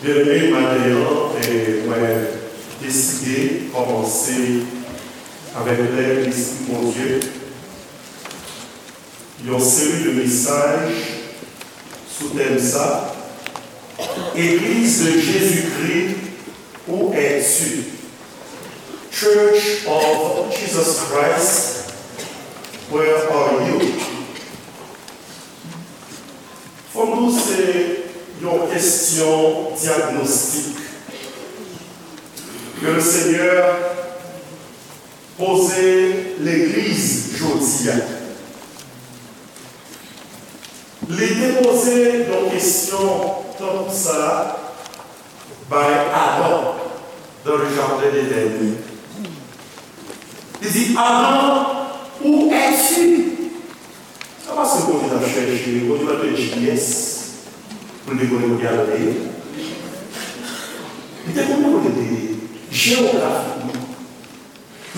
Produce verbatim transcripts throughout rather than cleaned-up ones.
Byeneme, maten an, e mwen deside kòmanse avèk lèd Lespri Bondye yon seri de mesaj sou tèm sa, Église de Jésus-Christ, où es-tu? Church of Jesus Christ, where are you? Fò m di w se yon kesyon dyagnostik ke Lesenyè poze legliz jodi a. Li te poze yon kesyon tankou sa a bay Adan dans le jardin d'Éden. Li di, Adan, où es-tu? Se pa paske Bondye t ap chèche, Bondye pa t gen G P S pou l te konnen kote Adan te ye. Li te konnen kote l te ye, jewografikman.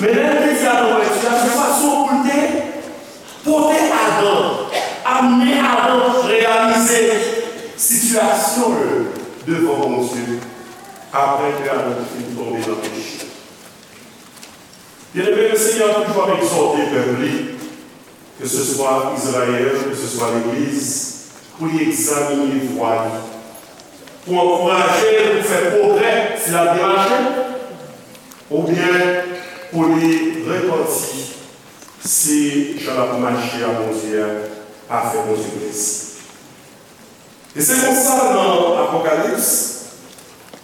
Men lè l te di Adan, où es-tu? A, se fason pou l te pote Adan, amene Adan reyalize sitiyasyon l devan Bondye, apre ke Adan te fin tonbe nan peche. Byeneme, Lesenyè toujou ap egzòte pèp li, ke se swa Izrayèl, ke se swa legliz, pou li egzamine vwa li, pou ankouraje l pou fè pwogrè si l ap byen mache, oubyen pou li repanti si jan l ap mache a Bondye a pa fè Bondye plezi. E se konsa, nan Apokalips,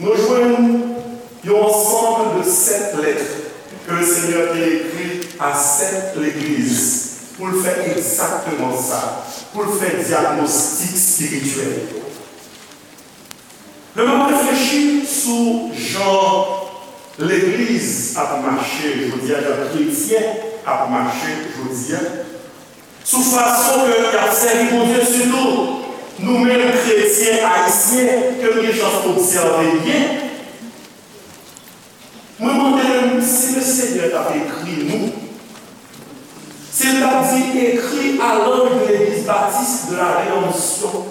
nou jwenn yon ansanm de sèt lèt ke Lesenyè te ekri a sèt legliz pou l fè egzakteman sa, pou l fè dyagnostik espirityèl. Lè m ap reflechi sou jan legliz ap mache jodi a, jan kretyen ap mache jodi a, sou fason ke y ap sèvi Bondye, sitou nou menm kretyen ayisyen ke nou gen chans obsève byen. Mwen mande m, si Lesenyè t ap ekri nou, si l t ap di, écris à l'ange de l'église baptiste de la Rédemption,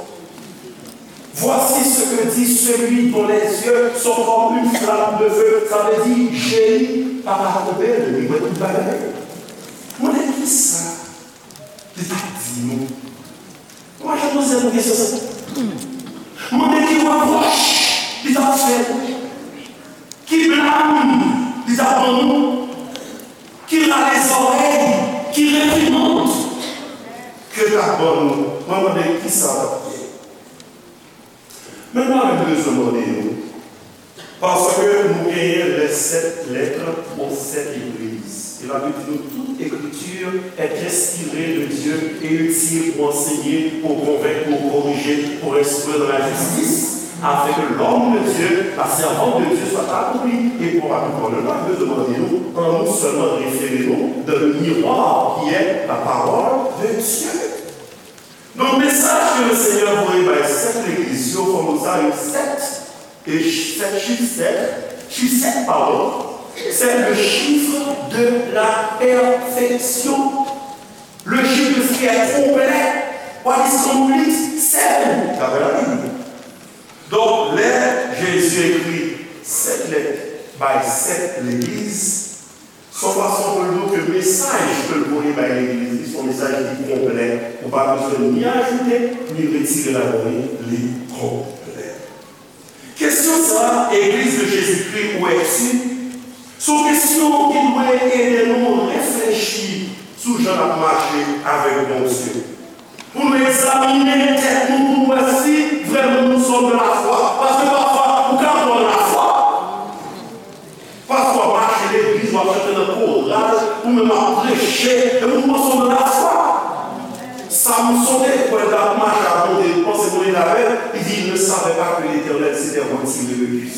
voici ce que dit celui dont les yeux sont comme une flamme de feu, sa vle di, je li pa ka twonpe l, li wè tout bagay. Mande kisa li t ap di nou. Mwen, jan nou se pou kesyon sa. Mande ki repwòch li t ap fè nou, ki blam li t ap ban nou, ki rale zòrèy, ki reprimand ke l t ap ban nou. Mwen mande kisa l t ap fè. Men mwen menm bezwen mande nou, paske nou genyen les sept lettres aux sept églises. E Labib di nou, toute écriture est inspirée de Dieu et utile pour enseigner, pour convaincre, pour corriger, pour instruire dans la justice, afin que l'homme de Dieu, la servante de Dieu soit accompli et propre à tout œuvre. Nou pa bezwen mande nou, an nou sèlman refere nou dans le miroir qui est la parole de Dieu. Donk, mesaj ke Lesenyè voye bay sèt legliz yo, fò nou sa yo sèt, e ch- sèt chif, sèt, chif sèt, padon, c'est le chiffre de la perfection. Le chiffre de ce qui est complet, what is complete, seven, daprè Labib. Donk, lè Jezi ekri sèt lèt bay sèt legliz, se yon fason pou l di w ke mesaj ke l voye bay legliz li, se yon mesaj ki konplè. Ou pa bezwen ni ajoute, ni retire ladan li, li konplè. Kesyon sa a, Église de Jésus-Christ, où es-tu? Se yon kesyon ki dwe ede nou reflechi sou jan n ap mache avèk Bondye. Pou nou egzamine tèt nou, pou nou wè si vrèman nous sommes de la foi. Paske pafwa, ou ka pran lafwa, pafwa w ap mache legliz, w ap chante nan koral, ou menm ap preche, epi w panse w nan lafwa. Samson te kwè l t ap mache ak Bondye, li panse Bondye t avè l, li di, il ne savait pas que l'Éternel s'était retiré de lui.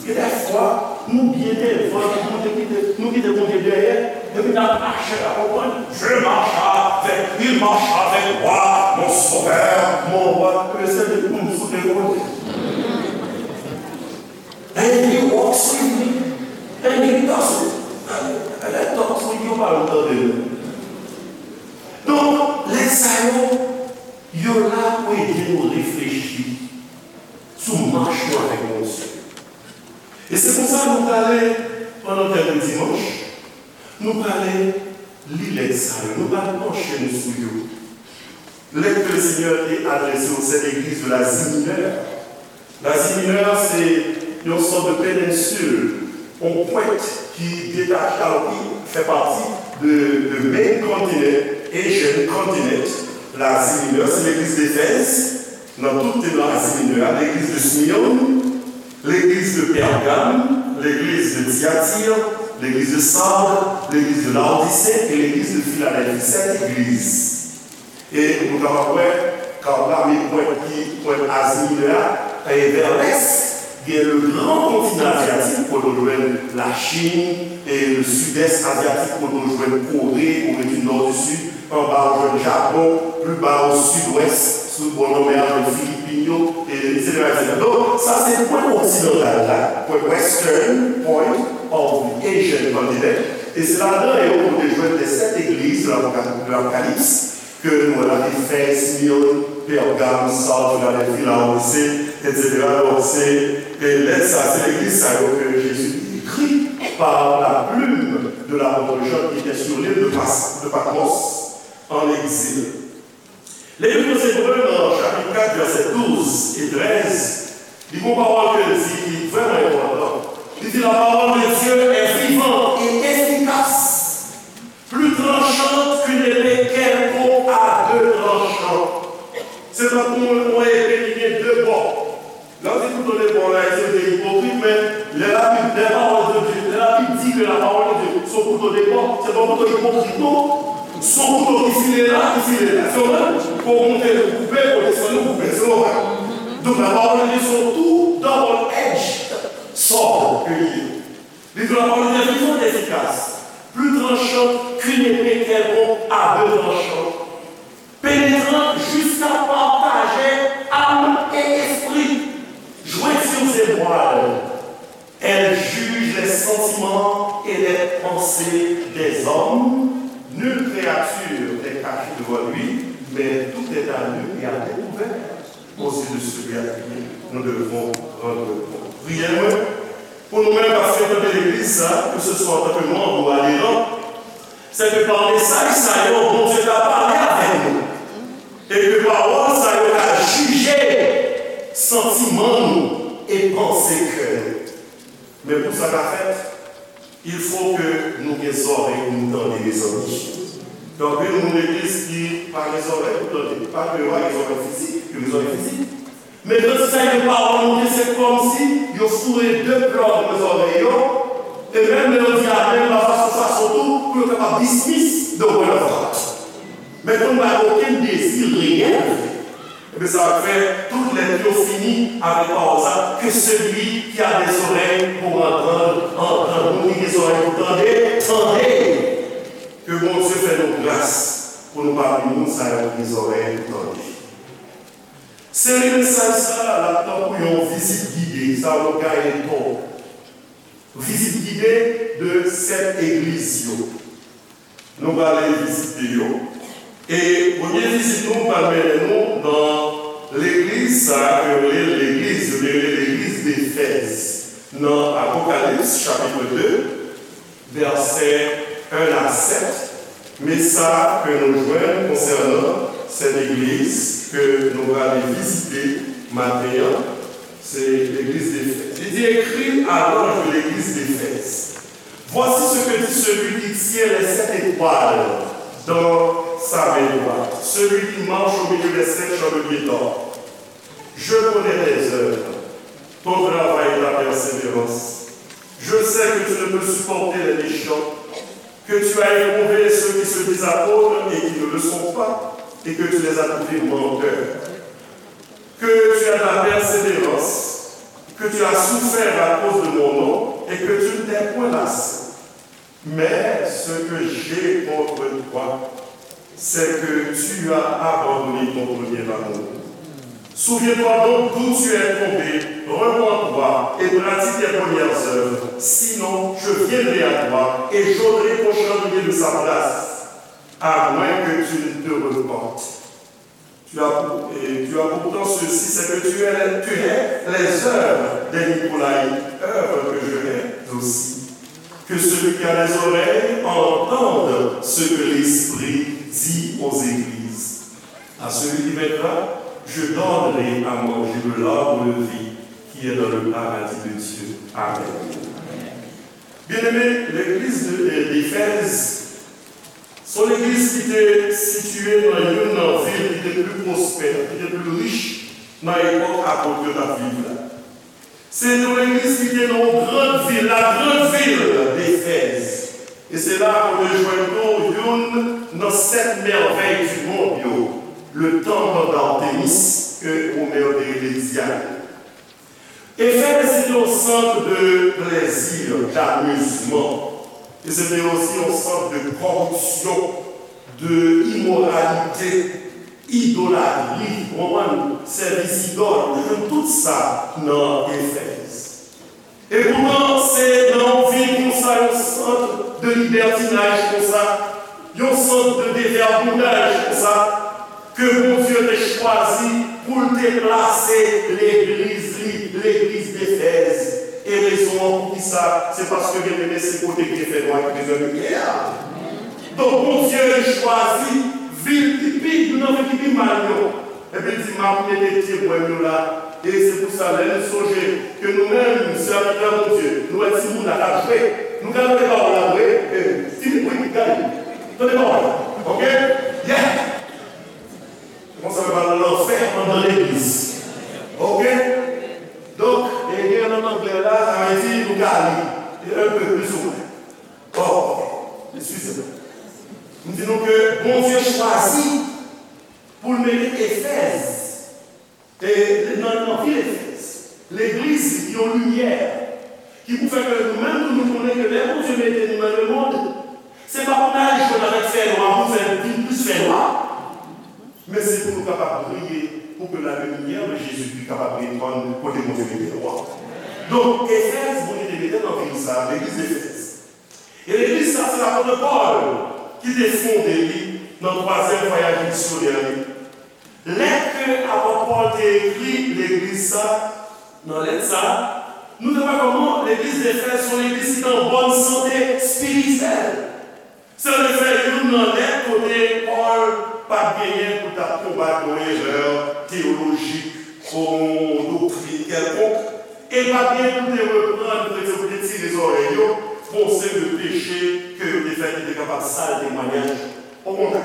Gen de fwa, nou byen devan, nou kite, nou kite Bondye dèyè, epi n ap mache la, konprann? Je marche avec, il marche avec moi, mon sauveur, mon roi. Ke Lesenyè di, m sou de Bondye. And he walks with me, and he doesn't. Lè dòt sou yo pa tande nou. Donk, lè sa yo, yo la pou ede nou reflechi. sou mach nou avèk Bondye. E se konsa nou prale, pandan tèm de dimanch, nou prale li lèt sa yo, nou pral panche nou sou yo. Lettre que le Seigneur a adressée aux sept églises de l'Asie mineure. L'Asie mineure, c'est une sorte de péninsule, yon pwent ki detache, ki fè pati de, de main continent, Asian continent, l'Asie mineure, c'est l'église d'Éphèse, nan tout te nan Azi Minè a, l'église de Smyrne, l'église de Pergame, l'église de Thyatire, l'église de Sardes, l'église de Laodicée et l'église de Philadelphie. Sèt egliz. E nou kapab wè, Karla, men pwent ki, pwent Azi Minè a, e vè lès, gen le gran kontinan azyatik, kote w jwenn Lachin, e le sidès azyatik, kote w jwenn Kore, Kore di Nò, di Sid, anba w jwenn Japon, pli ba o sidwès, sou bò lanmè a, w jwenn Filipin yo, e etsetera, etsetera. Donk, sa se pwen kontinantal la, pwen western point of the Asian continent, e se ladan yo ou te jwenn de sèt egliz de Apoka-, de Apokalips, ke nou wè la, Efèz, Smyrne, Pèrgam, Sard, Filadèlfi, Laodise, etsetera. Donk, se, e lèt sa, se legliz sa yo ke Jezi ekri pa la plume de l'apôtre Jean qui était sur l'île de Pas-, de Patmos, en exil. Legliz nan Ebre, nan chapit kat, vèsè douz e trèz, li gon pawòl ke l di ki vrèman enpòtan. Li di, la parole de Dieu est vivante et efficace, plus tranchante qu'une épée quelconque à deux tranchants. Se tankou yon, yon epe ki gen de bò. Lè w di kouto de bò, ann Ayiti, yo te ipokrit, men lè Labib, lè pawòl de Dye, lè Labib di ke la parole de Dieu se yon kouto de bò, se pa yon kouto ipokrit, non. Se yon kouto ki file la, ki file la. Se yon menm, pou w monte, ou koupe, pou w desann, ou koupe, se yon menm. Donk, la parole de Dieu se yon tou double-edged sword ke li ye. Li di, la parole de Dieu est vivante et efficace, plus tranchante qu'une épée quelconque à deux tranchants, pénétrant jusqu'à partager âme et esprit, jointures et moelle. Elle juge les sentiments et les pensées des hommes. Nulle créature n'est cachée devant lui, mais tout est à nu et à découvert aux yeux de celui à qui nous devons rendre compte. Priyè mwen, pou nou menm k ap frekante legliz sa, ke se swa antanke manm ou aderan, se ke pa mesaj sa yo, Bondye ka pale avèk nou. E ke pawòl sa yo ka jije santiman nou e panse kè nou. Men pou sa ka fèt, il faut que nou gen zòrèy pou nou tande, mezanmi. Gen anpil moun legliz ki pa gen zòrèy pou tande. Pa ke yo pa gen zòrèy fizik, yo gen zòrèy fizik. Men kantite sa yo pawòl Bondye, se kòmsi yo foure de plòg nan zòrèy yo, e menm lè yo di amèn, pa fason, fason tou, pou yo kapab dismiss the word of God. Men pou n pa gen okenn dezi reyèl, ebyen, sa va fè tout lèt yo fini avèk pawòl sa, que celui qui a des oreilles pour entendre, entende. Moun ki gen zòrèy pou tande, tande. Ke Bondye fè nou gras pou nou pami moun sa yo ki gen zòrèy pou tande. Seri mesaj sa a, l ap tankou yon vizit gide, sa yo gaye to. Vizit gide de sèt egliz yo. Nou prale vizite yo. E premye vizit nou pral mennen nou nan legliz sa a, ke yo rele legliz, yo rele legliz Efèz. Nan Apokalips, chapit de, vèsè en a sèt, men sa ke nou jwenn konsènan sèt egliz ke nou prale vizite maten an, se legliz Efèz. Li di, écris à l'ange de l'église d'Éphèse, voici ce que dit celui qui tient les sept étoiles dans sa main droite, celui qui marche au milieu des sept chandeliers d'or. Je connais tes œuvres, ton travail et ta persévérance. Je sais que tu ne peux supporter les méchants, que tu as éprouvé ceux qui se disent apôtres et qui ne le sont pas, et que tu les as trouvés menteurs. Que tu as de la persévérance, que tu as souffert à cause de mon nom, et que tu ne t'es point lassé. Mais ce que j'ai contre toi, c'est que tu as abandonné ton premier amour. Souviens-toi donc d'où tu es tombé, repens-toi et pratique tes premières œuvres. Sinon, je viendrai à toi et j'ôterai ton chandelier de sa place, à moins que tu ne te repentes. Tu as, et tu as pourtant ceci, c'est que tu es, tu hais les œuvres des Nicolaïtes, œuvres que je hais aussi. Que celui qui a les oreilles entende ce que l'Esprit dit aux églises. À celui qui vaincra, je donnerai à manger de l'arbre de vie qui est dans le paradis de Dieu. Amen. Byeneme, legliz de, de, d'Efèz, se yon legliz ki te sitiye nan youn nan vil ki te pli pwospè, ki te pli rich nan epòk apot yo t ap viv la. Se yon legliz ki te nan yon gran vil, la grande ville d'Éphèse. E se la ou te jwenn tou youn nan sèt mèvèy di mond yo, le temple d'Artémis, ke Omer te rele Diane. Efèz se te yon sant de plèzi, d'amizman. E se te osi yon sant de kòripsyon, de imoralite, idolatri, ou konprann? Sèvis idòl, ou jwenn tout sa nan Efèz. E poutan, se nan yon vil konsa, yon sant de libètinaj konsa, yon sant de devagabondaj konsa, ke Bondye te chwazi pou l te plase legliz li, legliz Efèz. E rezon an poukisa? Se paske, byeneme, se kote ki te fè nwa ki bezwen limyè a. Donk, Bondye li chwazi vil ki pi, youn nan vil ki pi mal yo. Epi l di, "M ap mete pye bwè m yo la." E se pou sa, lè nou sonje ke nou menm, sèvitè Bondye, nou wè timoun la k ap jwe, nou ka rele pawòl la vre, e, timoun, wi, gade, tande pawòl la, oke? Yeah! Konsa, yo pral lanfè anndan legliz. Oke? Donk, e gen nan anglè la, sa vle di nou ka li, e un peu, plus ou moins. Bon, eskize mwen. M di nou ke Bondye chwazi pou l mete Efèz, e nan, nan vil Efèz, legliz li, yon limyè, ki pou fè ke nou menm tou nou konnen ke lè Bondye mete nou nan lemonn, se pa pou n al jwenn avèk fènwa, pou fè vin plis fènwa, men se pou nou kapab briye, pou ke la lumière de Jésus-Christ kapab depann kote Bondye mete nou an. Donk, Efèz, Bondye te mete nan vil sa, legliz Efèz. E legliz sa, se lapot Pòl ki te fonde li nan twazyèm vwayaj misyonè li. Lèt ke apot Pòl te ekri legliz sa, nan lèt sa, nou te wè kòman legliz Efèz se yon legliz ki te an bòn sante espirityèl. Se anefè youn nan lèt kote Pòl pa t genyen pou l t ap konbat yon erè teyolojik, yon doktrin kèlkonk, e l pa t genyen pou l te reprann kretyen, pou l te tire zòrèy yo pou yon seri de peche ke yo te fè ki te kapab sal temwayaj yo. Okontrè,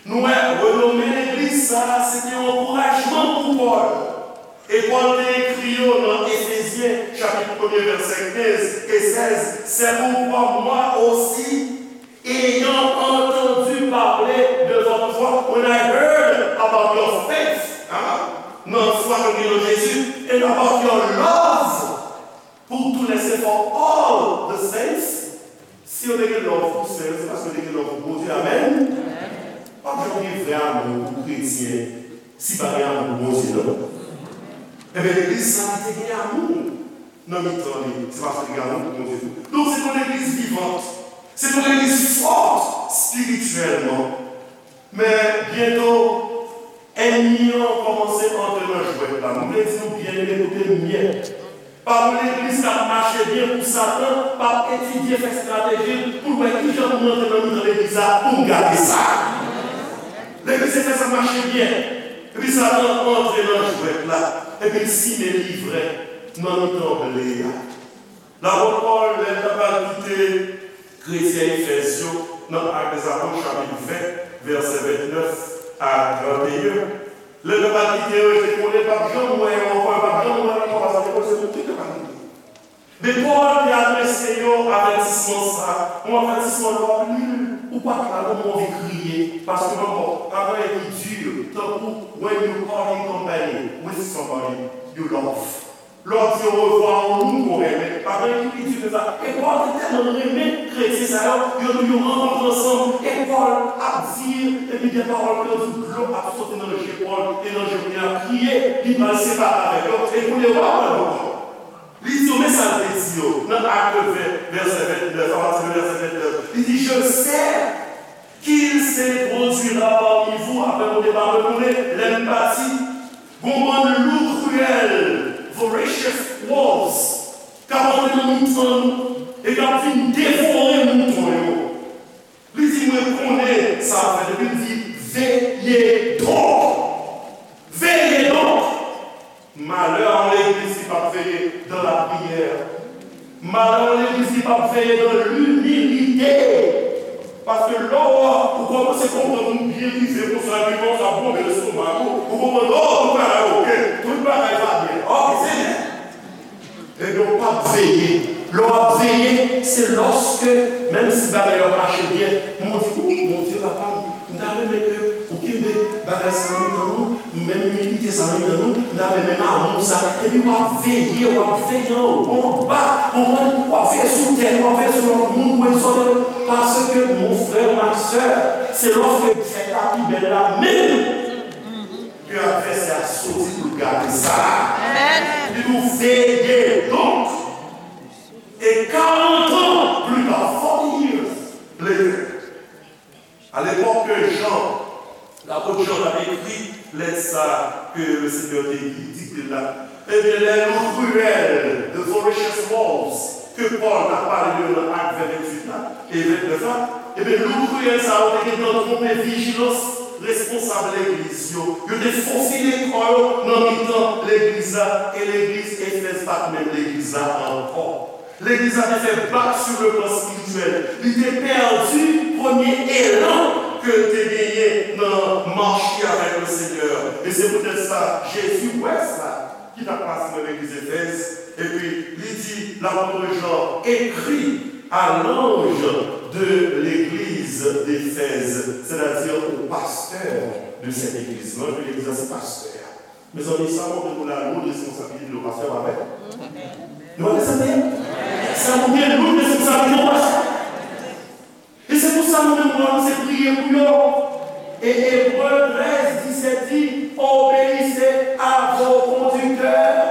nou wè renome legliz sa a, se te yon ankourajman pou Pòl. E Pòl te ekri yo nan Efezyen, chapit premye, vèsè kenz e sèz, c'est pourquoi moi aussi, ayant entendu parler de votre foi, when I heard about your faith, hein, nan fwa ke w gen nan Jezi, and about your love pour tous les saints, for all the saints, si yo te gen love pou sè yo, se paske yo te gen love pou Bondye. Amèn. W ap janm gen vrè amou pou kretyen si pa gen amou pou Bondye, non. Ebyen, legliz sa li te gen amou nan mitan li, se paske li gen amou pou Bondye tou. Donk, se yon legliz vivant, se yon legliz fòt espirityèlman. Men byento, ènmi an kòmanse antre nan jwèt la. Mwen vle di nou byen, men koute m byen. Pa yon legliz k ap mache byen pou Satan p ap etidye, fè estrateji l pou l wè kijan pou m antre nan mitan legliz la pou m gate sa. Legliz Efèz ap mache byen, epi Satan antre nan jwèt la, epi l simen livrè nan mitan ble a. Lapot Pòl, lè l t ap al kite kretyen Efèz yo, nan Actes des Apôtres, chapit ven, vèsè vennèf a tranteyen, lè l t ap al kite yo, yo te konnen l p ap janm wè yo ankò, yo p ap janm wè l ankò, paske yo se moun ki te pa gen. Men Pòl te adrese yo avètisman sa a, yon avètisman lè w ap li l, ou pa t la, non, men w anvi kriye, paske, bon, travay ki di, tankou when you parting company with somebody you love. Lè w di orevwa a yon moun ke w renmen, pa gen anyen ki pi di ke sa. E Pòl te tèlman renmen kretyen sa yo, yo, yo rankontre ansanm, e Pòl ap di, epi gen pawòl ke yo di dlo ap soti nan je Pòl, e nan je Pòl ap kriye, li pral separe avèk yo, e kounye a w ap wè l ankò. Li di yo, men sa l te di yo, nan Actes ven, vèsè vennèf, apati de vèsè vennèf, li di, Je sais qu'ils se produira parmi vous, apre mwen te pa retounen, lè m pati, gon bann lou kriyèl, voracious wolves, k ap antre nan mitan nou, e k ap vin devore mouton yo. Li di, mwen konnen sa ap fèt, epi l di, veye donk. Veye donk. Malheur à l'église qui pas veillé dans la prière. Malheur à l'église qui pas veillé dans l'humilité. Paske lè w ou kòmanse konprann ou byen rive konsa, epi konsa bonbe lestomak ou, ou konprann, oh, tout bagay oke, tout bagay va byen. Ok, Senyè. Ebyen, w p ap veye. Lè w ap veye, se lòske, menm si bagay yo ap mache byen, men w di, ou, Bondye papa m, m ta renmen ke ou kenbe bagay sa nan mitan nou, menm imilite sa nan mitan nou, m ta renmen amou sa. Epi w ap veye, w ap veye anwo, anba, konprann, w ap veye sou tèt, w ap veye sou lòt moun, w ap izole yo. Paske, mon frè, ma sè, se lòske fèt la pi bèl la menm ke advèsè a soti pou l gate sa. Amèn. Li di w, veye donk, et quarante ans plus tard, forty years later, à l'époque que Jean, l'apôtre Jean, t ap ekri lèt sa ke le Seigneur te di, dikte l la, ebyen, lè lou kriyèl, the voracious wolves, ke Pòl t ap pale de yo nan Ak venntuit la e vennèf la, ebyen, lou kriyèl sa yo te gentan twonpe vijilans responsab legliz yo. Yo te fofile kò yo nan mitan legliz la, e legliz Efèz pa t menm legliz la ankò. Legliz la te fè bak sur le plan spirituel. Li te pèdi premye elan ke l te genyen nan mach li avèk le Seigneur. E se poutèt sa, Jezi wè sa ki t ap pase nan legliz Efèz, epi li di, lapot Jan ekri à l'ange de l'église d'Éphèse, c'est-à-dire au pasteur de cette église. L'ange de l'église, se pastè a. Mezanmi, sa montre nou la loud responsablite de pastè, pa vre? Nou pa vle sa, sa montre loud responsablite de pastè. E se pou sa nou menm, nou anonse priye pou yo. E Ebre trèz disèt di, obéissez à vos conducteurs,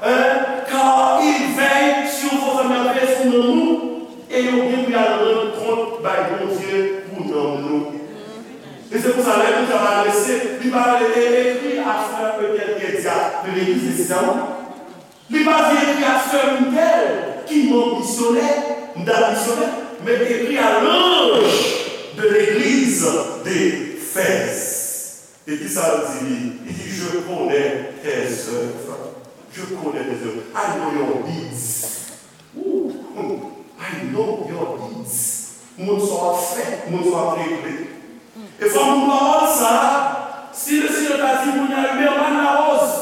hein, car ils veillent sur vos âmes, y ap veye sou nanm nou, e yo gen pou y al rann kont bay Bondye pou nanm nou. E se pou sa, lè Bondye ap adrese, li pa rele, e, écrit à frère Etel Kedia de l'église de Sisamo. Li pa di écrit à sè Mitel ki manm misyonè, m ta misyonè, men écrit à l'ange de l'église d'Éphèse. E kisa l di li? Li di, je connais tes œuvres. Je connais tes œuvres. I know your deeds. Ooh, I know your deeds. Moun sa w ap fè, moun sa w ap regle. E fò nou pran pawòl sa a, si le Seigneur ta di moun nan Huberman Larose,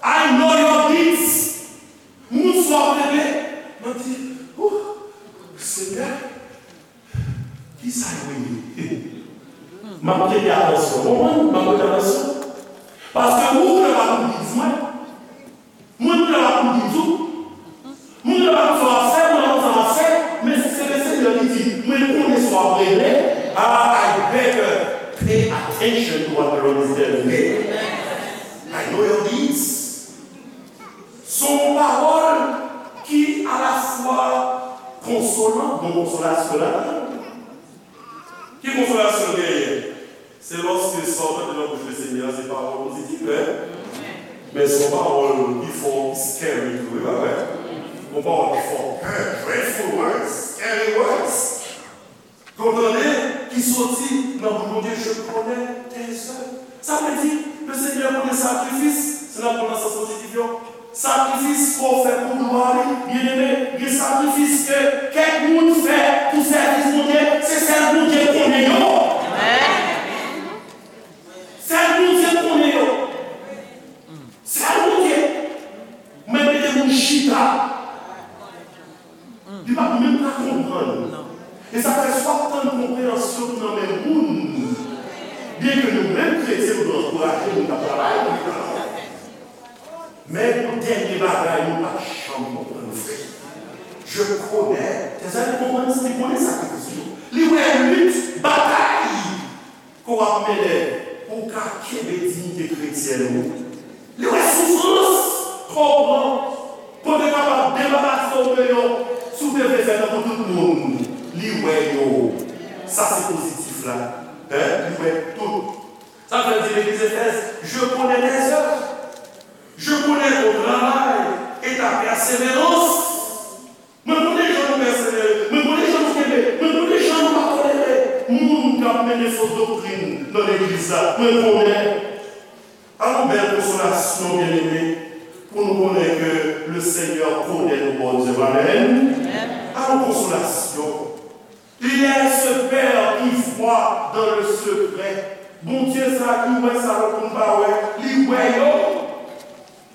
I know your deeds. Moun sa w ap regle. Mwen di, ooh, Senyè, kisa yo ye? M ap prete atansyon. Konprann? M ap prete atansyon. Paske ou, ou nan pa pou di mwen. Mwen, mwen la pou di tou. Mwen la pou sa w ap fè, mwen la pou sa w ap fè. Men se le Seigneur ki di, mwen konnen sa w ap regle. Ah, I better pay attention to what the Lord is telling me. I know your deeds. Se yon pawòl ki alafwa konsolan, bon konsolasyon ladan. Ki konsolasyon l genyen? Se lòske sa w tande nan bouch Lesenyè a se pawòl pozitif, en? Men se yon pawòl ki fè w scary tou, wi, pa vre? Yon pawòl ki fè w pè, dreadful words, scary words. Ke w tande ki soti nan bouch Bondye, je connais tes œuvres. Sa vle di, Lesenyè konnen sakrifis, si n ap pran nan sans pozitif yo, sakrifis ke w fè pou glwa li, byeneme, gen sakrifis ke kèk moun fè pou sèvis Bondye, se sèl Bondye konnen yo. Sèl Bondye konnen yo. Sèl Bondye. Mwen mete moun chita. Li pa menm ka konprann. E sa fè si w ap tann konpreyansyon nan men moun, byenke nou menm kretyen, nou dwe ankouraje moun k ap travay, men yon dènye bagay nou pa janm konprann vre. Je connais tes œuvres, li konprann, li konnen sakrifis ou. Li wè lit, batay ke w ap mennen pou w ka kenbe diyite kretyèn ou. Li wè soufrans ke w pran pou w te kapab debarase w de yo, si w te vle fè tankou tout moun. Li wè yo. Sa se pozitif la. Hein? Li wè tout. Sa fè l di legliz Efèz, je connais tes œuvres. Je connais ton travail et ta persévérance. Mwen konnen jan nou pèsevere. Mwen konnen jan nou kenbe. Mwen konnen jan nou pa tolere moun k ap mennen fo doktrin nan legliz la. Mwen konnen. Alò, bèl konsolasyon, byeneme, pou nou konnen ke le Seigneur connaît nos bonnes œuvres. Amèn. Alò, konsolasyon. Il est ce Père qui voit dans le secret. Bondye sa ki wè sa lòt moun pa wè, li wè yo.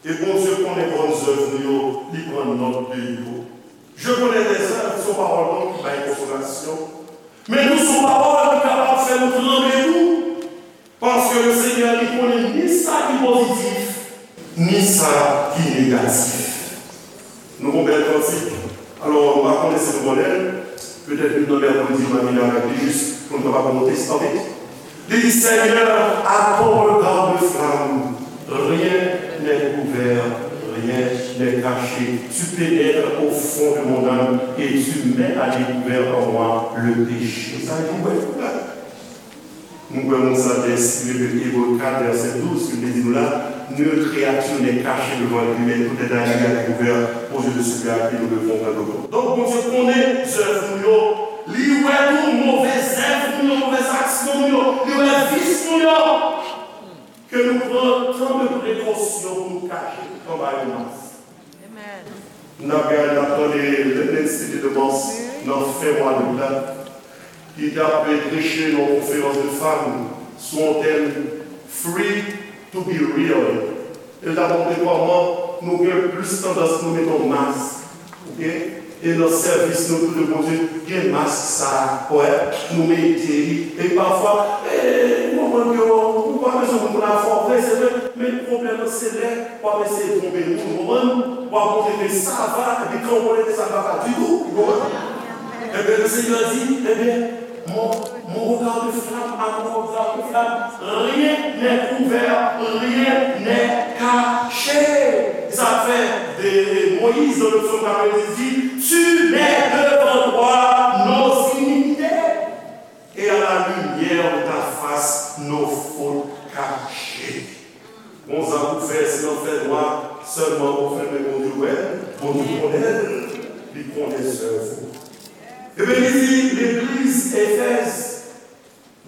E Bondye konnen bonnes œuvres nou yo, li pran nòt de yo. Je connais tes œuvres, se yon pawòl donk ki bay konsolasyon. Men tou se yon pawòl ki kapab fè nou tranble tou. Paske le Seigneur li konnen ni sa ki pozitif, ni sa ki negatif. Nou gon bèl kantik. Alò, m pa konnen si nou konnen l. Petèt youn nan mèkredi, m a vin avèk li jis pou n kapab monte sa vit. Li di, Seigneur, à ton regard de flamme, rien n'est couvert, rien n'est caché. Tu pénètres au fond de mon âme et tu mets à découvert en moi le péché. Sa vle di, wè, Nou kwè moun sa te enspire de Ebre kat vèsè douz ki te di nou la, nulle créature n'est cachée devant lui, mais tout est à lui à découvert aux yeux de celui à qui nous devons rendre compte. Donk, Bondye konnen zèv nou yo, li wè tou move zèv nou yo, move aksyon nou yo, li wè vis nou yo. Ke nou pran tan de prekosyon pou nou kache anba yon mask. N ap gade, n ap tande Lindsay Edemans nan fen mwa dout la, ki t ap preche nan yon konferans de fanm sou yon tèm Free to be real. E l t ap montre kòman nou gen plis tandans pou nou mete yon mask, oke? E nan sèvis nou tou de Bondye, gen mask sa a, wè, nou mete li. E pafwa, e, ou konprann ke w, ou pa bezwen moun pou l ap fè w vre, se vre, men pwoblèm nan se lè w ap eseye twonpe moun, ou konprann? W ap montre ke sa va, epi kan w konnen ke sa va pa ditou, ou konprann? Ebyen, le Seigneur dit, ebyen, mon, mon regard de flamme, à mon regard de flamme, rien n'est couvert, rien n'est caché. Sa fè de Moïse dans le psaume quatre-vingt-dix dit, tu mets devant toi nos iniquités. Et à la lumière de ta face, nos fautes cachées. Gon zak ou fè, si nan fènwa, sèlman ou fèmen Bondye wè, Bondye konnen, li konnen zèv ou. Ebyen, li di legliz Efèz,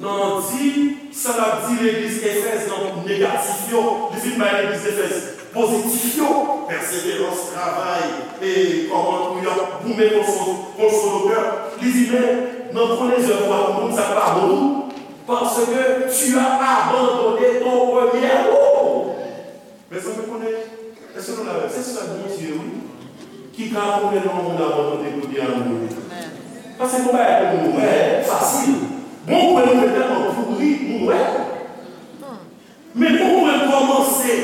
nan di, sa l ap di legliz Efèz nan negatif yo, li fin bay legliz Efèz pozitif yo, pèseverans, travay, e kòman pou y ap goumen kont fo, kont fo doktè. Li di, men, nan konnen zèv ou a, moun sa k pa bon tou, parce que tu as abandonné ton premier amour. Mezanmi, konnen, èske nou la menm? Se sèl Bondye, wi, ki ka konnen lè yon moun abandone premye amour li. Paske gon bagay pou nou wè fasil. Gon pwen nou fè tèlman pouri, nou wè. Men gon pwen kòmanse,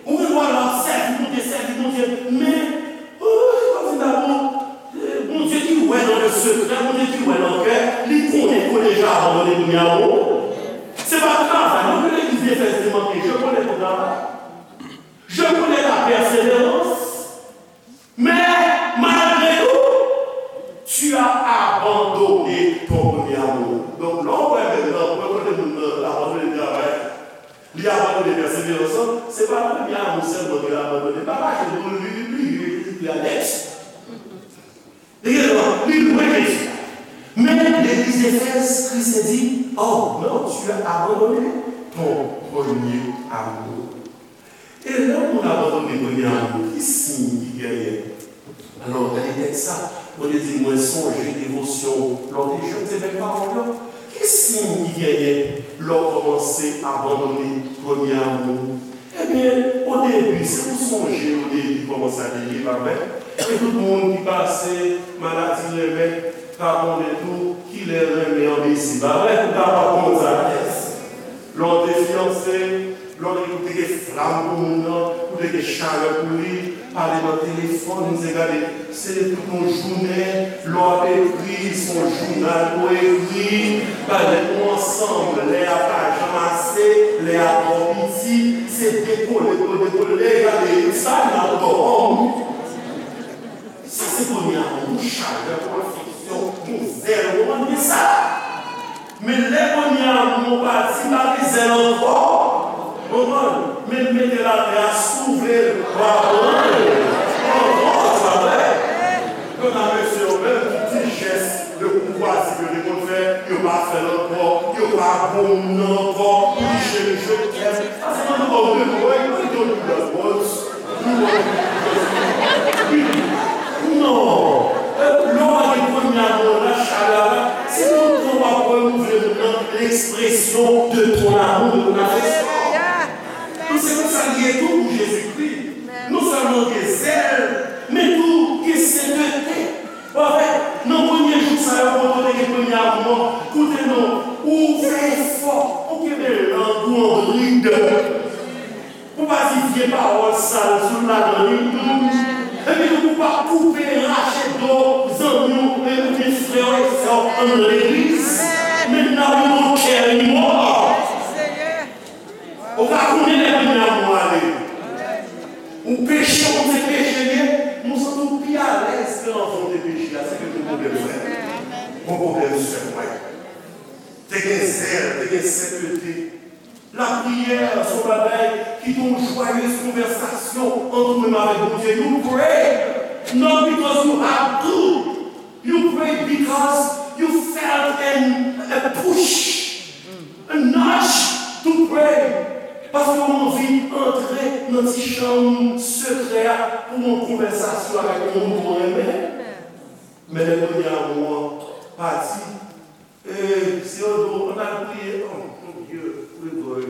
ou gen dwa la sèvi Bondye, sèvi Bondye, men, oh, kòm di dabò, Bondye ki wè nan le secret, Bondye ki wè nan kè, li konnen ke w deja abandone premye amour. Se pa travay non ke legliz Efèz te manke, je connais ton travail. Je connais ta persévérance. Mais malgré tout, tu as abandonné ton premier amour. Donk, lè w wè menm nan pwen kote moun nan abandone travay, li abandone pèseverans lan, se pa premye amour sèlman ke l abandone. Pa fache non, li, li bliye, li, li, li anèks. Li gen dwa, li lwen Jezi. Men legliz Efèz, Kris te di, oh non, tu as abandonné ton premier amour. E lè yon moun abandone premye amour, ki siy ki genyen? Alò, gade tèks sa, Bondye di, mwen sonje devosyon w lè w te jèn, se menm pawòl yo. Ki siy ki genyen lè w kòmanse abandone premye amour? Ebyen, o debi, si w sonje o debi kòman sa te ye, pa vre? E tout moun ki pase maladi renmen, pa konnen tou kilè renmen an bese, pa vre? Ou ta pa konn sa. Lè w te fiyanse, lè w te, ou te gen flam pou moun nan, ou te gen chalè pou li, pale nan telefòn, se gade, se tout yon jounen, lè w ap ekri, se yon jounal pou w ekri, pale nou ansanm, lè a pa janm ase, lè a twò piti, se dekole pou dekole, gade, sa nan dòmi. Sa se premye amour, yon chalè, yon afeksyon, yon zèl, ou konprann sa? Men lè premye amou an pati, pa gen zèl ankò. Konprann? Men mete l atè a, souvle l, w a pran l ankò, se pa vre? Kanta mesye yo menm, tout ti jès de koutwazi ke yo te konn fè, yo pa fè l ankò, yo pa bon moun nan ankò, pou li cheri, je t'aime. Paske nan nou kòm de mwen, yo te yon lòt bòs. Non. Lè w pa gen premye amou an, la chalè a la, se tout tan w ap renouvle moun nan, l'expression de ton amour, de ton affection. Donk, se konsa l ye tou pou Jezikri. Non sèlman gen zèl, men tou gen sentete. Ou wè, nan premye jou sa yo, kote w te gen premye amou an, koute non, ou fè efò, ou kenbe lang ou an brid. Pou pa di vye pawòl sal sou ladan li, epi tou pou pa koupe, rache do zanmi w, e, oubyen frè w e sè w anndan legliz. Men n ap yon kè li mò. Ou pa konnen lè premye amou ale. Ou peche, ou se peche li ye, men w santi w pi alèz ke anvan w te peche a, se ke gen pwoblèm frè m, gen pwoblèm sè m. Te gen zèl, te gen sentete. Lapriyè se yon bagay ki te yon jwaye konvèsasyon ant ou menm avèk Bondye. You pray not because you have to. You pray because you felt an, a push, a nudge to pray. Paske w anvi antre nan ti chanm sekrè a pou yon konvèsasyon avèk yon moun ou renmen. Men lè premye amou an pati, e, si yo di w, ann al priye, oh, mon Dieu, priye pou yo.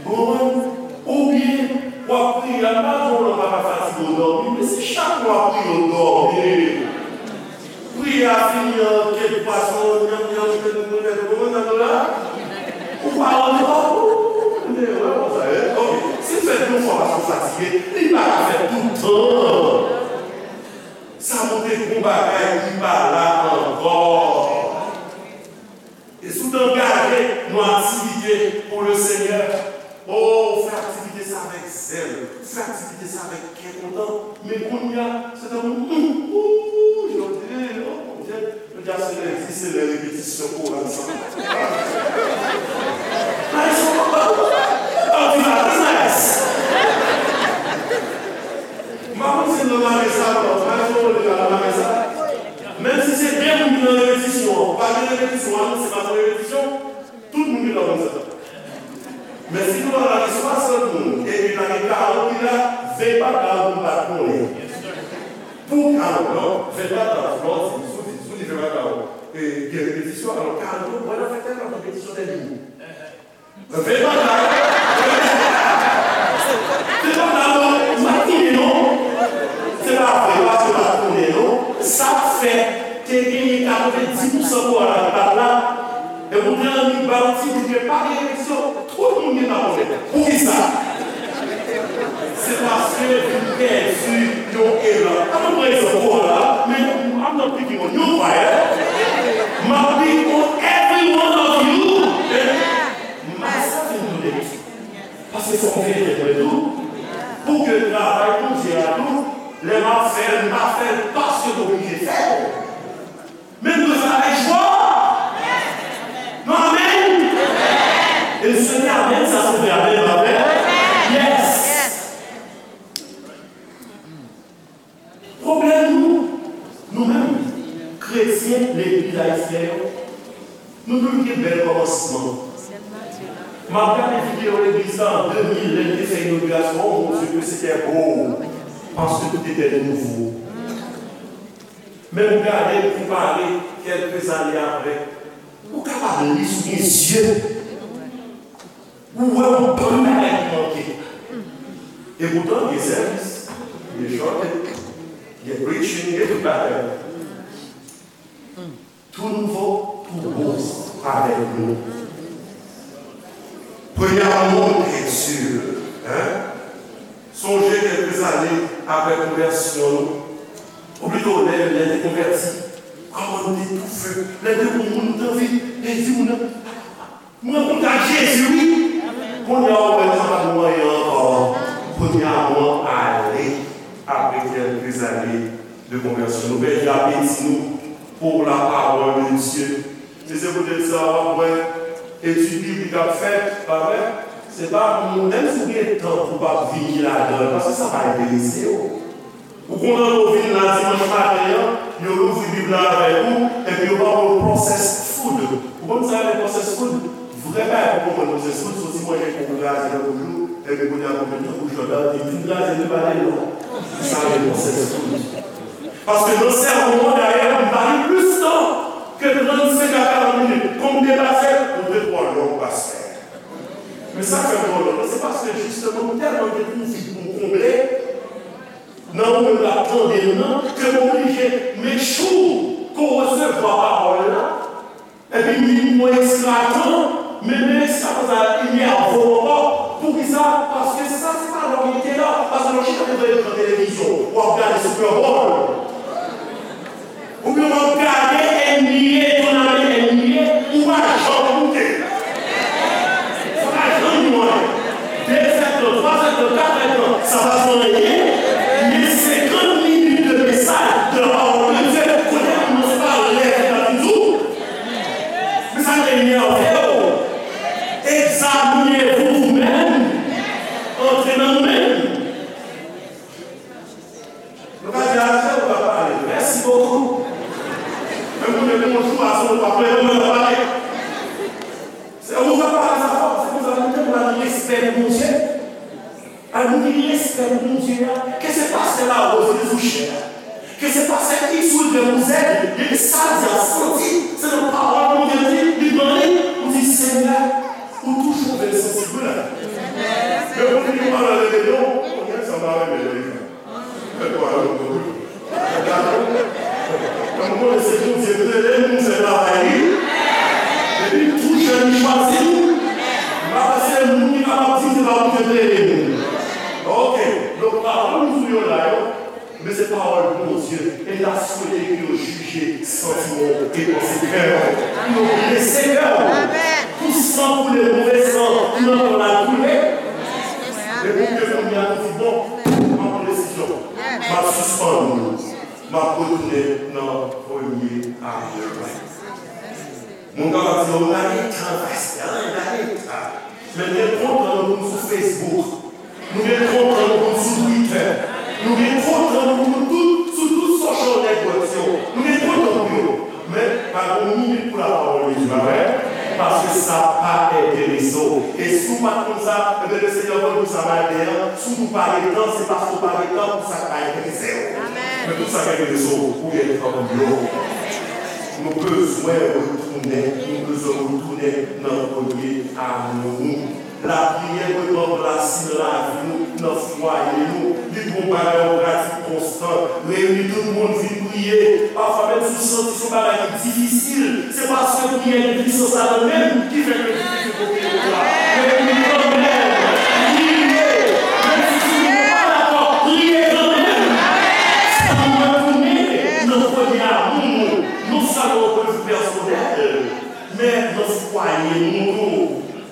Bon, oubyen, w ap priye, a pa di w pa ka fatige w dòmi, men si chak lè w ap priye, w dòmi. Priye a fini an kèk pwason, nyanm, nyanm, kèk moun, kèk moun, nan la, ou pa rantre pa ou. Men, wè, konsa, e, ok. Si l fèt yon fwa paske w fatige, li pa ka fèt tout tan. Sa montre gon bagay ki pa la ankò. E si w te angaje nan aktivite pou le Senyè, o, ou fè aktivite sa avèk zèl, ou fè aktivite sa avèk kè kontan, men kounye a, se tankou, hmm, ou, jodi, o, Bondye, jodi a se lendi, se lè repetisyon koral sa. Nice, nice. M pa konn si l nan mare sa, non, nice, ou konn deja nan mare sa. Menm si se de moun ki nan repetisyon an, pa gen repetisyon, anonse pa gen repetisyon, tout moun gentan konn sa. Men si nou la gen swasant moun, epi la gen karant ki la, ven pa karant moun pa t konnen. Pou karant, non, ven pa karant, non, si, si, si, si, ven pa karant, e, gen repetisyon, alò karant yo, mwen la fè tèlman repetisyon tèlman. Fè pa la. Fè pa la, non. M ap tounen, non. Se pa vre, paske m ap tounen, non. Sa k fè te genyen katrevenndis pousan koral la ki pa t la. E pou te annik ba yon ti bout ke pa gen eleksyon, tout moun gentan konnen. Poukisa? Se paske vin pèdi yon elan. An nou pran egzanp koral la, men I'm not picking on you, kwayè. M ap pick on every one of you. Myself included. Paske fòk m fè entèprèt tou. Pou ke travay Bondye a tou, lè m ap fè l, m pa fè l paske m oblije fè l. Men m dwe fè l avèk jwa. Non, amèn. E se te amèn, sa se vrè amèn, pa vrè? Yes. Pwoblèm nou, nou menm, kretyen legliz ayisyen yo, nou toujou gen bèl kòmansman. M ap gade videyo legliz la an de mil, lè n te fè inogirasyon, oh mon Dieu, que c'était beau, parce que tout était nouveau. Men m gade, m konpare, kèlke zane apre, ou kapab li sou gen zye. Ou wè yon bann bagay ki manke. E poutan, gen sèvis, gen chante, gen preaching, gen tout bagay. Tou nouvo, tou bon avèk nou. Premye amou, bien sûr, hein? Sonje kèlke zane apre konvèsyon nou, ou plito lè, lè te konvèti, kòman nou te toufe, lè te wè yon moun, nou te anvi di moun nan, mwen konn ak Jezi, wi. Kounye a, ou wè, sa pa t bon anyen ankò. Premye amou an ale apre kèlke zane de konvèsyon. Nou pèdi apeti nou pour la parole de Dieu. E se poutèt sa w ap wè etid biblik ap fèt, pa vre? Se pa moun, menm si w gen tan pou w pa vini ladan l, paske sa pa enterese yo. Ou kontan lè w vin la dimanch maten an, yo louvri Bib la avèk ou, epi yo ba w processed food. Ou konn sa rele processed food? Vrè bagay pou konprann processed food, se yon ti manje kou kraze nan bouch ou, epi kounye a konprann tankou Jòdan, li fin kraze, li pa rele non. Sa rele processed food. Paske nan sèmon an, dayè, m pa gen plis tan ke trannsenk a karant minit. Kòm m te pase, m te twò long, pastè. Men sa k fè m twò long, se paske jisteman, m tèlman gen konfli pou m konble, nan ou menm k ap tande m nan, ke m oblije make sure ke w resevwa pawòl la, epi m vin pran ekstra tan, men, men ekstra tan sa a enève w ankò. Poukisa? Paske sa se pa lè w gen tela, paske lè w chita devan ekran televizyon, w ap gade Super Bowl. Oubyen w ap gade N B A, tournament N B A, ou pa janm koute. Sa pa janm yon anyen. De zèdtan, twa zèdtan, kat zèdtan, sa pa fè anyen. Men senkant minit de mesaj de la parole de Dieu, kote moun nan se pa lè ki ta vin di w. Men sa k enève w. Examinez-vous vous-même. Antre nan nou menm. Nou ka di, "Aje, ou ka pale. Merci beaucoup." Menm pou mwen bonjou, a se ou pa plede mwen ka pale. Se ou ka pale sa fò, se konsa nou te pral respè pou Bondye. Al nou gen respè pou Bondye a. Ke se pastè Larose ki sou chè a. Ke se pastè X, Y ou Z, depi sa l di a santi, se nan pawòl Bondye di, li pran li, ou di, "Senyè, ou toujou vle l santi wi la." Men pou li pa nan rebelyon, kounye a sa pa rebelyon. Mwen konnen se Bondye k rele m pou m fè travay li. Depi m tou jèn, li chwazi m. M pa panse moun ki kapab di m se pa Bondye k rele m. Ok, donk pawòl m sou yo la yo, men se pawòl Bondye. E m ta swete ke yo jije santiman w e panse kè w. Pou yo blese kè w. Pou san koule, move san, pou nan kò l al koule. E pou ke kounye a nou di, "Bon, m ap pran desizyon." M ap sispann, m ap retounen nan premye amou mwen. Moun kapab di, "Yo, gade tan, pastè, gade tan." Men nou gen twòp tan nou pou n sou Facebook. Nou gen twòp tan nou pou n sou Twitter. Nou gen twòp tan nou pou nou tout, sou tout social network yo. Nou gen twòp tan pou yo. Men, pa gen yon minit pou lapawòl de Dye, pa vre? Paske sa pa enterese w. E si w pa t konn sa, ebyen, Lesenyè voye pou sa maten an. Si w di w pa gen tan, se paske w pa gen tan pou sa k pa enterese w. Men tout sa k enterese w, ou gen tan pou yo. Nou bezwen retounen, nou bezwen retounen nan premye amou nou. Lapriyè dwe ranplase nan lavi nou, nan fwaye nou. Li dwe yon bagay, yon pratik konstan. Reyini tout moun, vin priye. Pafwa menm si w santi se yon bagay ki difisil, se paske priyè gen pwisans ladan l menm ki fè ke l difisil pou priye pou la. Men priye kanmenm, priye. Menm si timoun yo pa dakò, priye kanmenm. Sa nou retounen nan premye amou nou, non sèlman yon pwen de vi pèsonèl, men nan fwaye nou tou.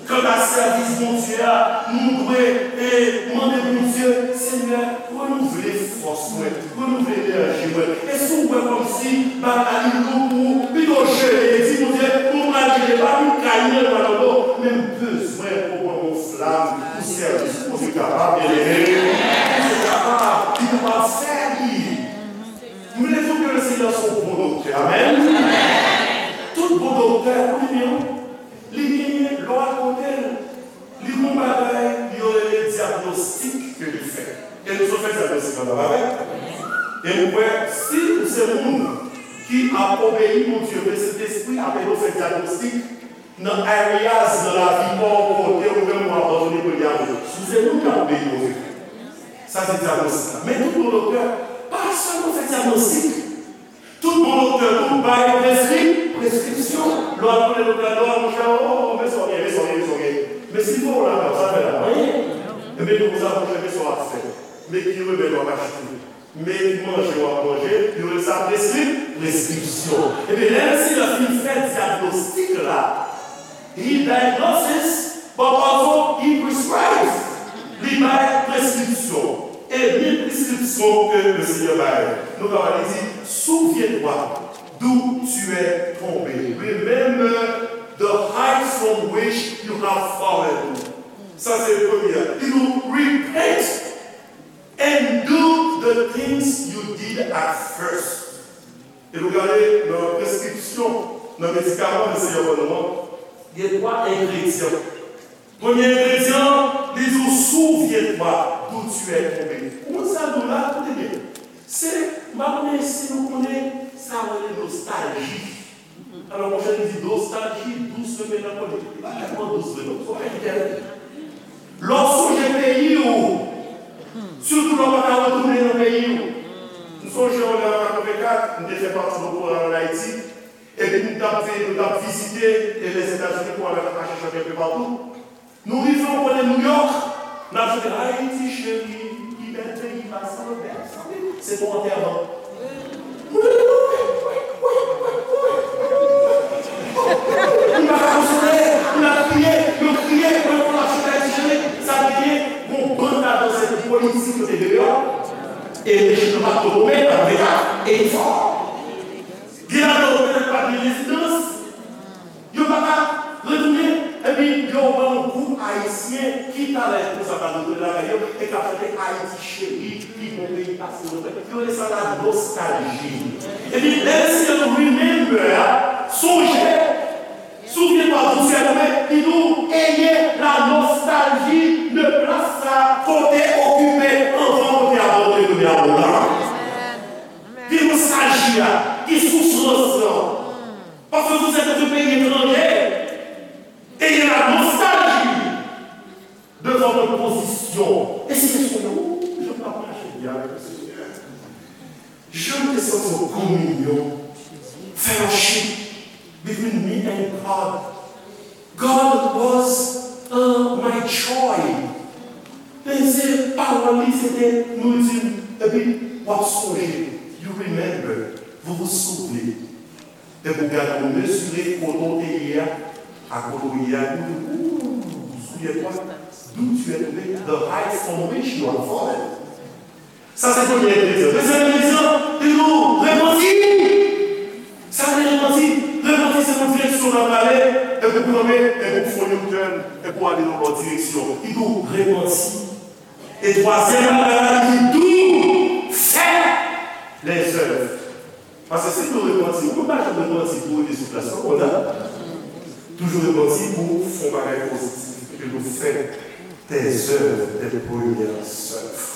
Kanta sèvis Bondye a, nou dwe, e, mande Bondye, Senyè, renouvle fòs mwen, renouvle enèji mwen. E si w wè kòmsi bagay la li lou pou ou, pito jene, di Bondye, mwen pral jene, pa vin kay mwen nan do, men m bezwen pou w ban mwen yon flam pou sèvis. Bondye kapab, byeneme. Bondye kapab, li kapab fè li. M vle di w ke Lesenyè se yon bon doktè. Amèn. Tout bon doktè, ou li menm. Li genyen, lè w al kote l, li gen yon bagay yo rele dyagnostik ke li fè. E nou sot fè dyagnostik la, pa vre? E m kwè, si ou se moun ki ap obeyi Bondye, ke Sentespri ap ede w fè dyagnostik nan areas nan lavi pa w kote ou menm ou abandone premye amou. Si w se moun k ap obeyi Bondye, sa se dyagnostik la. Men tout bon doktè pa sèlman fè dyagnostik. Tout bon doktè tou bay preskri-, preskripsyon. Lè w al kote doktè, lè w al, monchè, o, o, o, men sa w gen, men sa w gen, men sa w gen. Men si l voye w lakay ou, sa l fè la? Anyen. Ebyen, nou konsa, monchè, men sa w ap fè. Men ki remèd w ap achte. Men ki manje w ap manje. Yo rele sa preskri-, preskripsyon. Ebyen, lè Lesenyè fin fè dyagnostik la, He diagnoses, but also he prescribes. Li bay preskripsyon. E men preskripsyon ke Lesenyè bay. Nou kapab li di, si w vye dwat, D'où tu es tombé. Remember the height from which you have fallen. Sa se premye. Li di nou, repent and do the things you did at first. E nou gade nan preskripsyon, nan medikaman Lesenyè ban nou an, gen twa engredyan. Premye engredyan, li di w, souviens-toi d'où tu es tombé. Ou konn sa l di w la, koute byen. Se, m pa konnen si nou konnen sa yo rele nostalji. Alò, monchè, li di nostalji dous, men nan konnen. Li pa tèlman dous vre, non. Se yon bagay ki tèlman. Lè w sonje peyi w, sitou lè w pa ka retounen nan peyi w. M sonje w lè an katrevenkat, m te fè pati de koral ann Ayiti, epi nou t ap, nou t ap vizite, e, Lèzetazini, koral la t ap mache chante enpe patou. Nou rive, ou konnen, Nouyòk, n ap chante Ayiti cheri, ki bèl peyi pa sanble, sanble. Se pou antèman. Wi, wi, wi, wi, wi, wi. Nou pa ka konsole, nou ap kriye, nou kriye, nou ap chante Ayiti cheri. Sa vle di, gon bann ladan se politik yo te deyò, e rejim nan pa t pwomet, pa t vle ka, e li fò. Gen ladan yo petèt pa gen rezidans. Yo pa ka retounen, epi yo wè yon gwoup ayisyen ki talè konsa pral retounen lakay yo, e k ap chante Ayiti cheri, pi bon peyi pase nou fè. Yo rele sa la nostalji. Epi lè Lesenyè di w remember a, sonje, souviens-toi d'où tu es tombé, li di w, ayez la nostalgie de plas sa kote okipe anvan, kote abandone premye abò la. Gen nostalji a, gen soufrans lan. Parce que vous êtes dans un pays étranger, ayez la nostalgie de votre position. E se kesyon yo, jan m t ap mache byen avèk le Seigneur. Jan m te santi yon kominyon, fellowship between me and God. God was, uh, my joy. Men se pawòl li, se te nouriti m. Epi w ap sonje, you remember, vous vous souvenez. Epi w gade, w mezire kote w te ye a, a kote w ye a, ou di, ooh, souviens-toi d'où tu es tombé, the heights from which you have fallen. Sa se premye engredyan. Dezyèm engredyan, li di nou repanti. Sa vle repanti? Repanti se yon direksyon w ap ale, epi w kanpe, epi w fè yon U-turn, epi w ale nan yon lòt direksyon. Li di nou repanti. E twazyèm bagay la, li di nou fè lèzèv. Paske si nou repanti, ou pa janm repanti pou w rete sou plas lan konsa. Toujou repanti pou w fè yon bagay pozitif, epi pou w fè des œuvres, des premières œuvres.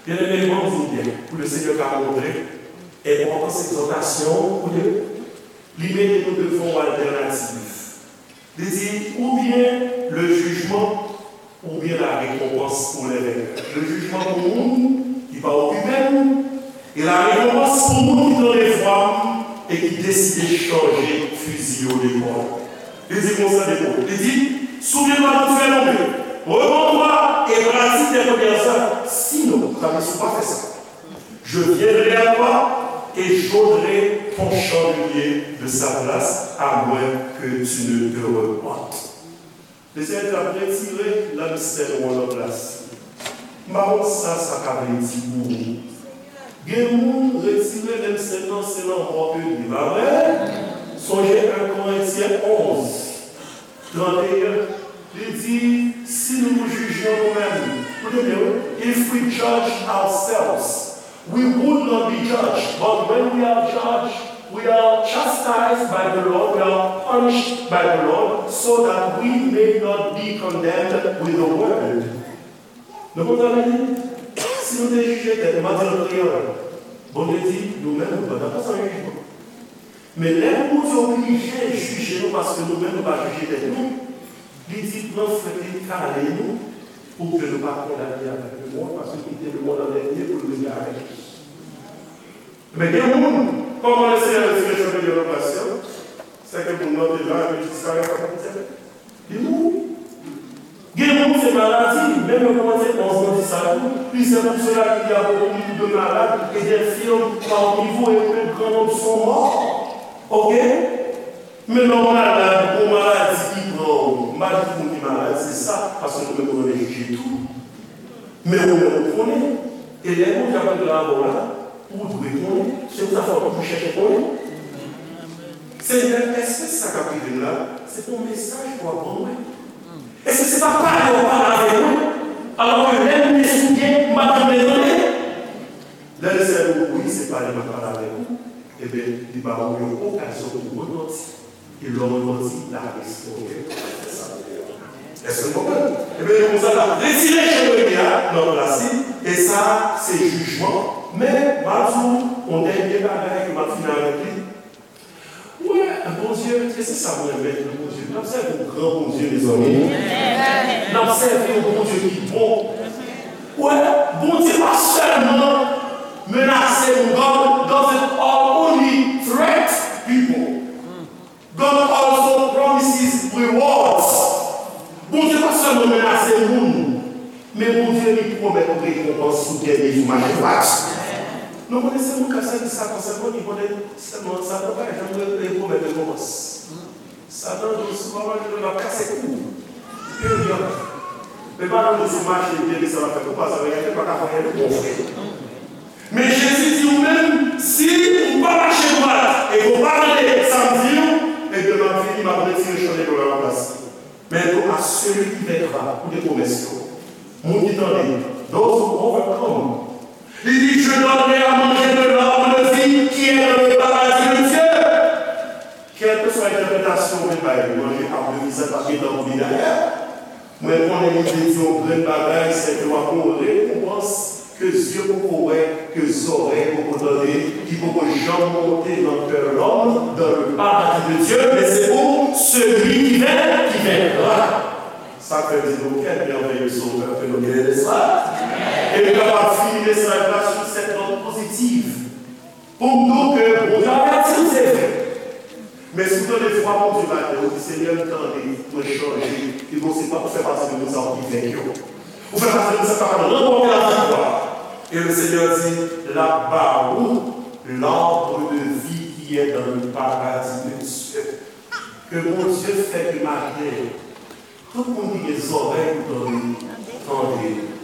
Byeneme, ban m di w byen, pou Lesenyè ka montre enpòtans egzòtasyon, koute, li mete nou devan yon altènativ. Li di, oubyen le jugement, oubyen la récompense pour les vainqueurs. Le jugement pou moun ki pa okipe m, e la récompense pou moun ki tande vwa m e ki deside chanje fizi yo de bò. Li di konsa de bò. Li di, souviens-toi d'où tu es tombé, repens-toi et pratique tes premières œuvres. Sinon, sa vle di si w pa fè sa, je viendrai à toi et j'ôterai ton chandelier de sa place, à moins que tu ne te repentes. Lesenyè di l ap retire lanmistèl ou an nan plas li. M pa konn sa sa ka vle di pou ou. Gen moun retire lanmistèl nan, se lanmò ke li ye, pa vre? Sonje en Korentyen onz, tranteyen, li di, si nou jije nou menm, koute byen wi, if we judge ourselves, we would not be judged, but when we are judged, we are chastised by the Lord, we are punished by the Lord, so that we may not be condemned with the world. Nou konprann sa m di? Si nou te jije tèt nou, m ap di l an kreyòl, Bondye di, nou menm, nou pa dakò san jijman. Men lè Bondye oblije jije nou paske nou menm nou pa jije tèt nou, li di pran fwèt li kale nou pou ke nou pa kondane avèk lemonn, paske kite lemonn an dènye pou l vini avèk li. Men gen moun, kòman Lesenyè retire chandelye nan plas yo, sèke moun nan te la epi l disparèt anvan midi. Li mouri. Gen moun se maladi, menm yo kòmanse onz nan di sa tou. Plizyè moun sou la ki di a beaucoup de malades et d'infirmes par niveau et que grand nombre sont morts. Oke? Men lè w malad, gon maladi ki pran ou, m pa di tout moun ki malad se sa, paske nou menm nou renmen jije tou. Men ou menm ou konnen, e lè Bondye ap regle avè w la, Ou dwe konnen, se pou sa fò w toujou chèche konnen. Senyè, èske sa k ap rive m la, se pa yon mesaj pou w ap ban mwen? Èske se pa pale w pale avèk mwen? Alò ke lè m te sou pye, m pa t vle tande. Lè Lesenyè di w wi, se pale m ap pale avèk ou, ebyen, li ba ou yon okazyon pou w repanti. E lè w repanti, l ap restore. Èske nou konprann? Ebyen, konsa, l ap retire Jeremi a nan plas li, e sa, se jijman. Men, m ap di w, yon dènye bagay ke m ap fini avèk li. Ou wè, Bondye, e se sa mwen renmen nan Bondye. N ap sèvi yon gran Bondye, mezanmi. N ap sèvi yon Bondye ki bon. Ou wè, Bondye pa sèlman menase moun. God doesn't only threat people. God also promises rewards. Bondye pa sèlman menase moun, men Bondye li pwomèt rekonpans sou dènye jou mache dwat. Nou konnen se moun k ap sèvi Satan sèlman ki konnen sèlman Satan pa janm re- re- pwomèt rekonpans. Satan di w si w pa manje l ap kase kou w. Peryòd. Men pa nan nou sou mache byen ke sa va fèt ou pa sa va gade pa ka fè anyen de bon frè. Men Jezi di ou menm, si ou pa mache dwat e ke w pa tande sa m di w, ebyen m ap vini, m ap retire chandèl yo nan laplas li. Men tou, à celui qui vaincra, koute pwomès yo. Moun ki tande, those who overcome. Li di, je donnerai à manger de l'arbre de vie qui est dans le paradis de Dieu. Kèlkeswa entèpretasyon ou vle bay li, manje ab de vi sa pa gentan pou li dayè. Mwen konnen li vle di yon grenn bagay, se ke w ap gen yon rekonpans ke zye poko wè, ke zòrèy poko tande, ki poko janm monte nan kè lòm, dans le paradis de Dieu, men se pou celui qui vainc, qui vaincra. Sa k fè m di nou, quel merveilleux Sauveur que nous avons, n'est-ce pas? E nou kapab fini mesaj la sur cette note positive. Pou m di w ke Bondye avèti w, se vre. Men si w tande vwa Bondye maten, ou di, Senyè, m tande, mwen chanje, li di w se pa pou fè pati de moun sa yo ki venk yo. Ou fè pati de moun sa yo ki kapab ranpòte laviktwa. E le Seigneur di, l ap ba ou l'arbre de vie qui est dans le paradis de Dieu. Ke Bondye fè ke maten, tout moun ki gen zòrèy pou tande, tande.